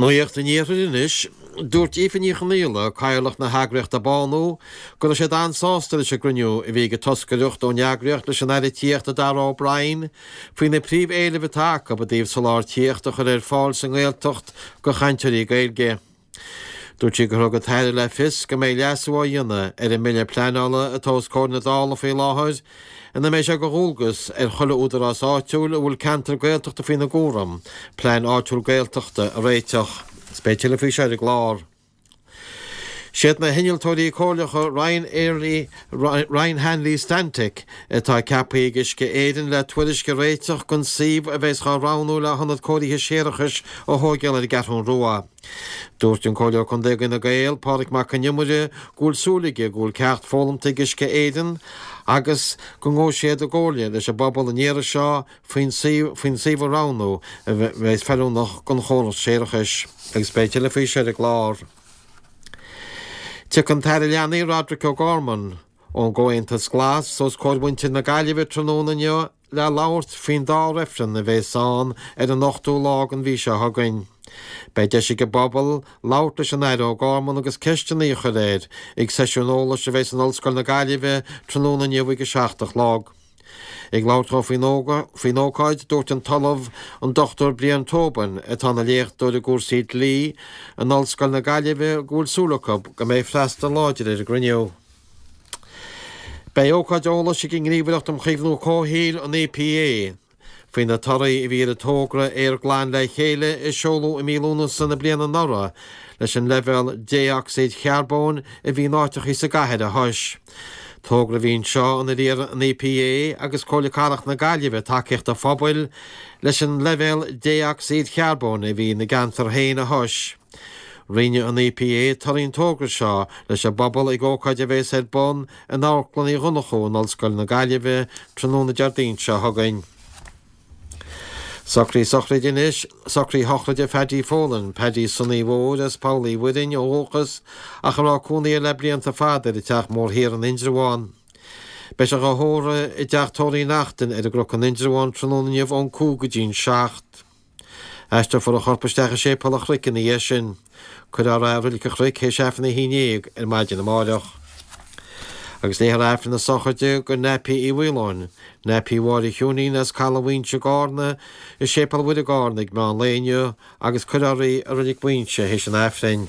Nuacht an Iarthair anois. Dúirt Aoife Ní Chonaola, Cathaoirleach na heagraíochta Bánú, go raibh siad an-sásta leis an gcruinniú a bhí ag an toscaireacht ón eagraíocht leis an Aire Tithíochta Darragh O'Brien faoi na príomh-éilimh atá acu i dtaobh soláthar tithíochta a chur ar fáil sa nGaeltacht do chainteoirí Gaeilge. Dúirt sí gur thug an tAire le fios go mbeidh leasú á dhéanamh ar an mBille Pleanála atá os comhair na Dála faoi láthair ina mbeidh sé de dhualgas ar chuile údarás áitiúil a bhfuil ceantar Gaeltachta faoina gcúram plean áitiúil Gaeltachta a réiteach. Is beidh tuilleadh faoi seo ar an gclár. Siad na hinnealtóirí comhairleacha Ryan Airlie, Ryan Hanley Stantec atá ceaptha ag Uisce Éireann le tuairisc a réiteach don suíomh a bheas dhá roghnú le hionad cóirithe séarachais a thóigeáil ar an gCeathrún Rua. Dúirt an Comhairleoir Contae d'Fhine Gael, Pádraig Mac Con Iomaire, go bhfuil súil aige go bhfuil ceacht foghlamta ag Uisce Éireann agus go ngabhfaidh siad i gcomhairle leis an bpobal an iarraidh seo faoin suíomh a roghnú a bheas feiliúnach don chóras séarachais. Agus beidh tuilleadh faoi seo ar an gclár. Tiocfaidh an tAire Leanaí Roderic O'Gorman ón gComhaontas Glas os comhair mhuintir na Gaillimhe tráthnóna inniu le labhairt faoin dá reifreann a bheas ann ar an ochtú lá den mhí seo chugainn. Beidh deis ag an bpobal labhairt leis an Aire O'Gorman agus ceisteanna a chur air ag seisiún eolais a bheas in Ollscoil na Gaillimhe tráthnóna inniu ag 7 a chlog. Ag labhairt dó faoin ócáid, dúirt an tOllamh, an Dr Brian Tobin, atá ina léachtóir i gcúrsaí dlí in Ollscoil na Gaillimhe, go bhfuil súil acu go mbeidh freastal láidir ar an gcruinniú. Beidh ócáid eolais ag an nGníomhaireacht um Chaomhnú Comhshaoil, an EPA, faoi na torthaí a bhí ar an togra Aer Glan le Chéile a seoladh i mí Lúnasa na bliana anuraidh leis an leibhéal dé-ocsaíd charbóin a bhí in áiteachaí sa gcathair a thomhas. Togra a bhí anseo inar iarr an EPA agus Comhairle Cathrach na Gaillimhe tacaíocht an phobail leis an leibhéal dé-ocsaíd charbóin a bhí ina gceantar féin a thomhas. Roinnfidh an EPA torthaí an togra seo leis an bpobal ag ócáid a bheas ar bun in Amharclann Uí Dhonnchú in Ollscoil na Gaillimhe tráthnóna Déardaoin seo chugainn. Socruithe sochraide anois, socruithe sochraide Phaddy Folan, Paddy Sonaí Mhóir as Poll Uí Mhuirinn ó dhúchas ach a raibh cónaí air le blianta fada ar an Teach Mór Thiar in Indreabhán. Beidh sé dhá thórramh i dTeach Tórraimh Uí Neachtain ar an gCnoc in Indreabhán tráthnóna inniu ón 5 go dtí'n 7. Aistreofar a chorp isteach i Séipéal an Chnoic ina dhiaidh sin. Cuirfear é i Reilig an Chnoic théis Aifreann a 11 ar maidin amáireach. Agus léifear Aifreann na sochraide do Nappy Uí Mhaoláin, Nappy Mháire Chiúinín as Caladh Mhaínse i gCarna, i Séipéal Mhuire i gCarna ag meán lae inniu agus cuirfear í i Reilig Mhaínse théis an Aifrinn.